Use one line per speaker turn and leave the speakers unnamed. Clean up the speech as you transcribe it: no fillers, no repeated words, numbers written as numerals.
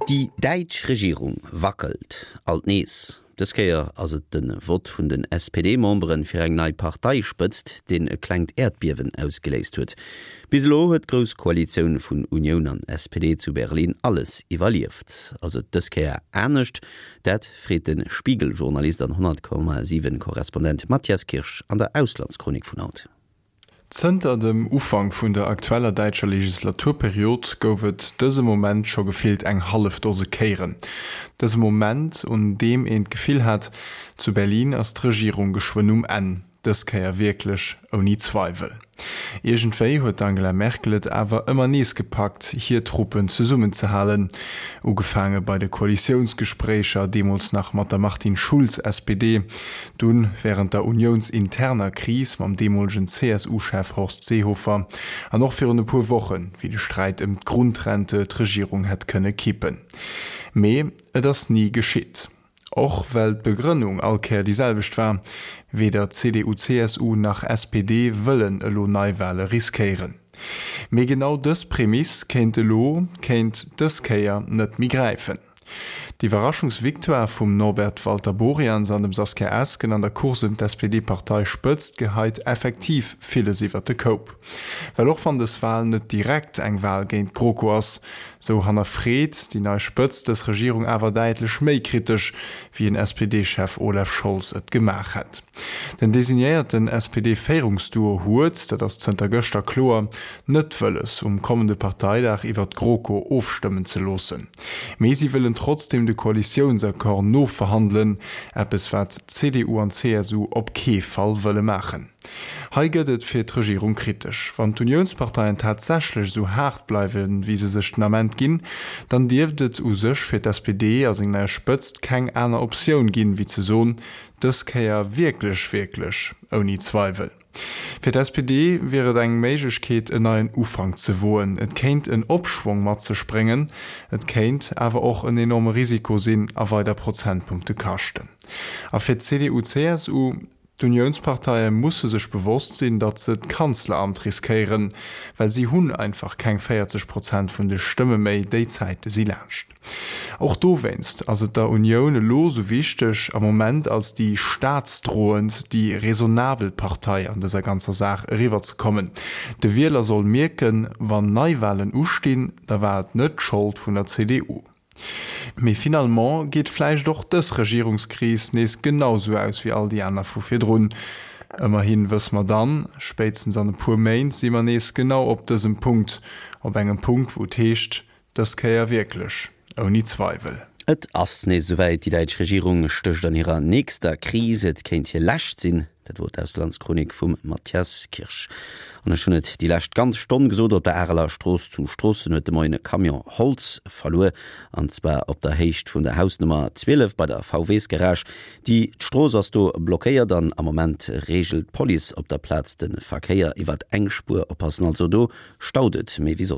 Déi däitsch Regierung wackelt alt nees. Dës Kéier ass et de Vott vun den SPD-Membere fir eng nei Parteispëtzt, deen e klengt Äerdbiewen ausgeléist huet. Bis elo huet d'Grouss Koalitioun vun Unioun an SPD zu Berlin alles iwwerlieft. Ass et dës Kéier anescht? Dat freet de Spiegel-Journalist an 100,7 Korrespondent Matthias Kirsch an der Auslandschronik vun haut.
Zënter dem Ufank vun der aktueller däitscher Legislaturperiod gouf et dëse Moment scho gefillt eng hallef Dose Kéieren. Dëse Moment, un deem een d'Gefill hat, zu Berlin ass d'Regierung geschwënn um Enn, dës Kéier wierklech ouni Zweiwel. Iergendwéi huet d'Angela Merkel et awer ëmmer nees gepackt, hir Truppen zesummenzehalen. Ugefaange bei de Koalitiounsgespréicher, deemools nach mat der Martin Schulz, SPD, dunn wärend der uniounsinterner Kris mam deemolegen CSU-Chef Horst Seehofer an och virun e puer Wochen, wéi de Sträit ëm d'Grundrente d'Regierung hätt kënne kippen. Mee et ass ni geschitt. Och well d'Begrënnung all Kéier déi selwecht war, Weder CDU-CSU nach SPD wëllen elo Neiwale riskéieren. Mee genau dës Prämiss kéint elo, kéint dës Kéier net méi gräifen. D'Iwwerraschungsvictoire vum Norbert Walter-Borjans an dem Saskia Esken an der Course ëm d'SPD-Parteispëtzt geheit effektiv villes iwwert de Koup. Well och wann dës Wal net direkt eng Wal géint d'GroKo ass, sou hannerfreet déi nei Spëtzt dës Regierung awer däitlech méi kritesch, wéi en SPD-Chef Olaf Scholz et gemaach hätt. Den designéierten SPD-Féierungsduo huet, dat ass zënter gëschter kloer, net wëlles, um kommende Parteidag iwwer d'GroKo ofstëmmen ze loossen. Mee si wëllen trotzdeem de Koalitiounsaccord noverhandelen, eppes wat CDU an CSU op kee Fall wëlle maachen. Hei gëtt et fir d'Regierung kritesch. Wann d'Uniounsparteien tatsächlech esou haart bleiwen, wéi se sech den Ament ginn, dann dierft et u sech fir d'SPD a seng nei Spëtzt keng aner Optioun ginn, wéi ze soen, dës Kéier wierklech, wierklech ouni Zweiwel. Fir d'SPD wier et eng Méiglechkeet, en neien Ufank ze woen. Et kéint en Opschwong mat sech bréngen, et kéint awer och en enorme Risiko sinn a weider Prozentpunkte kaschten. A fir d'CDU-CSU? D'Uniounsparteie musse sech bewosst sinn, datt se d'Kanzleramt riskéieren, well si hunn einfach keng 40 Prozent vun de Stëmme méi, déi Zäite si laanscht. Och dowéinst ass et der Unioun elo sou wichteg, am Moment als déi staatsdroend, déi raisonnabel Partei an dëser ganzer Saach eriwwerzekommen. De Wieler soll mierken, wann Neiwalen ustinn, da war et net d'Schold vun der CDU. Mee finalement geet vläicht och dës Regierungskris nees genau sou aus wéi all déi aner vu virdrun. Ëmmerhi wësse mer dann, spéitstens an e puer Méint si mer nees genau op dësem Punkt, op engem Punkt wou et heescht, dës Kéier wierklech ouni Zweiwel.
Et ass nees esouwäit, déi däitsch Regierung stécht an hirer nächster Kris. Et kéint hir lescht sinn. Dat wor d'Auslandschronik vum Mathias Kirsch. An ech hunn et déi lescht ganz Stonn gesot, op der Areler Strooss zu Stroossen huet de Moien e Camion Holz verluer, an zwar op der Héicht vun der Hausnummer 12 bei der VWs-Garage. Déi d'Strooss ass do blockéiert an am Moment reegelt d'Police op der Plaz de Verkéier iwwert eng Spuer. Oppassen also, do staut et méi wéi soss.